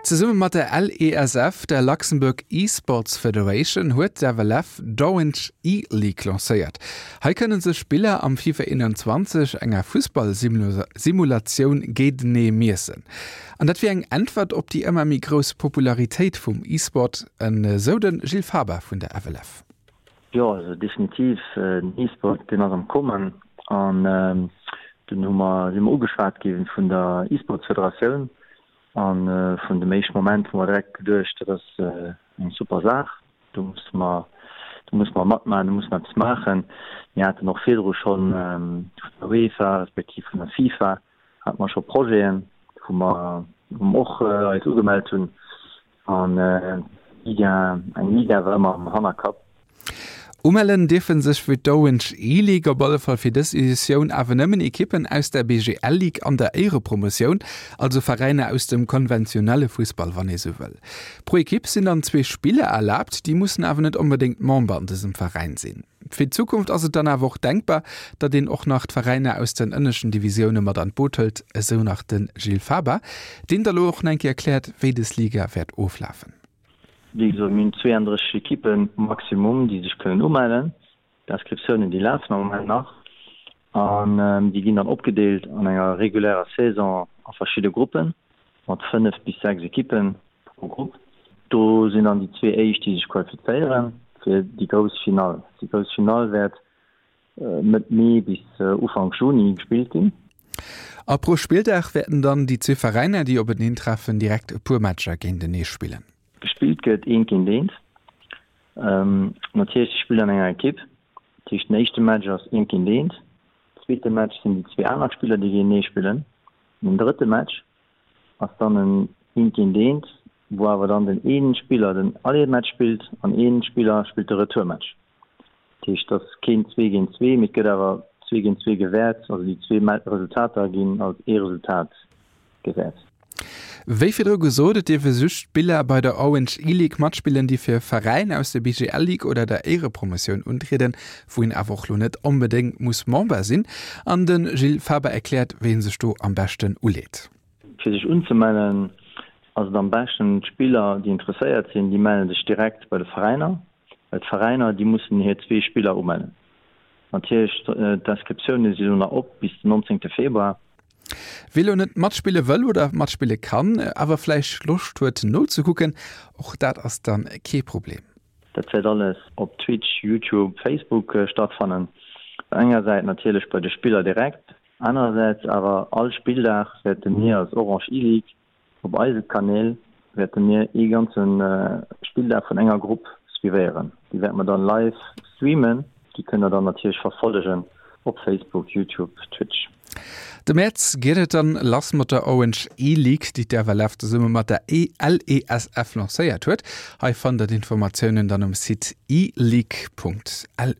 Zesumme mat der LESF, der Luxembourg Esports Federation, huet d'FLF d'Orange E-League lancéiert. Hei kënne sech Spiller am FIFA 21, enger Fussball-Simulatioun, géintenee miessen. An dat wier eng Äntwert op déi ëmmer méi grouss Popularitéit vum E-Sport, esou de Gilles Faber vun der FLF. Jo, also definitiv, den E-Sport deen ass am Kommen an dunn hu mer, si mer ugeschwat gi vun der E-Sports-Federatioun a vun dem éischte Moment hu mer direkt geduecht, dat ass eng super Saach, do musse mer, do musse mer matmaachen, do musse mer eppes maachen. Mir haten och virdru schonn vun der UEFA respektiv vun der FIFA hate mer scho Projeten, wou mer, wou mer och eis ugemellt hunn An Liga, eng Liga war ëmmer am Hannerkapp. Umellen dierfe sech fir d'Orange E-League op alle Fall fir dës Editioun awer nëmmen Ekippen aus der BGL Ligue an der Éierepromotioun, also Veräiner aus dem konventionelle Fussball, wann ee sou wëll. Pro Ekipp sinn dann zwee Spiller erlaabt, déi mussen awer net onbedéngt Member an dësem Veräin sinn. Fir d'Zukunft ass et dann awer och denkbar, datt een och nach d'Veräiner aus den ënneschten Divisioune mat an d'Boot hëlt, esou nach de Gilles Faber, deen da lo och nach eng Kéier erkläert, wéi dës Liga wäert oflafen. Wéi gesot, mir hunn 32 Ekippen maximum, déi sech kënnen umellen. D'Inscriptiounen, déi lafen am Moment nach an déi ginn dann opgedeelt an enger regulärer Saison a verschidde Gruppen mat 5 bis 6 Ekippen pro Grupp. Do sinn dann déi zwee éischt, déi sech qualifizéiere fir déi grouss Finall. Déi grouss Finall wäert Mëtt Mee bis Ufank Juni gespillt ginn. A pro Spilldag wäerten dann déi zwee Veräiner, déi openeen treffen, direkt e puer Matcher géintenee spillen. Gespillt gëtt eent géint eent. Natierlech, si spillen an enger Ekipp. Dat heescht, den éischte Match ass eent géint eent. Zweete Match sinn déi zwee aner Spiller, déi géintenee spillen. Den drëtte Match ass dann en eent géint eent, wou awer dann den ee Spiller den Aller-Match spillt an ee Spiller spillt de Retour-Match. Dat heescht, et ass keen zwee géint zwee, mee et gëtt awer zwee géint zwee gewäert. Also déi zwee Resultater ginn als ee Resultat gewäert. Wéi virdru gesot, et dierfe just Spiller bei der Orange E-League matspillen, déi fir Veräin aus der BGL Ligue oder der Éierepromotioun untrieden, wou een awer och lo net onbedéngt muss Member sinn. An de Gilles Faber erkläert, wéi ee sech do am beschten uleet. Fir sech unzemellen ass et am beschten, d'Spiller, déi interesséiert sinn, déi melle sech direkt bei de Veräiner. Well d'Veräiner, déi mussen hir zwee Spiller umellen. Natierlech, d'Inscriptioune si lo nach op bis den 19 Februar. Wie lo net matspille wëll oder matspille kann, awer vläicht Loscht huet nozekucken, och dat ass dann kee Problem. Dat wäert alles op Twitch, YouTube, Facebook stattfannen. Engersäit natierlech bei de Spiller direkt, anerersäits awer all Spilldag wäerte mir als Orange E-League Op eise Kanäl wäerte mir ee ganze Spilldag vun enger Grupp suivéieren. Déi wäerte mer dann live streamen. Déi kënnt der dann natierlech verfollegen op Facebook, YouTube, Twitch. De Mäerz geet et dann lass mat der Orange E-League, déi d'FLF zesumme mat der LESF lancéiert huet. Hei fannt der d'Informatiounen dann um Site eleague.lu.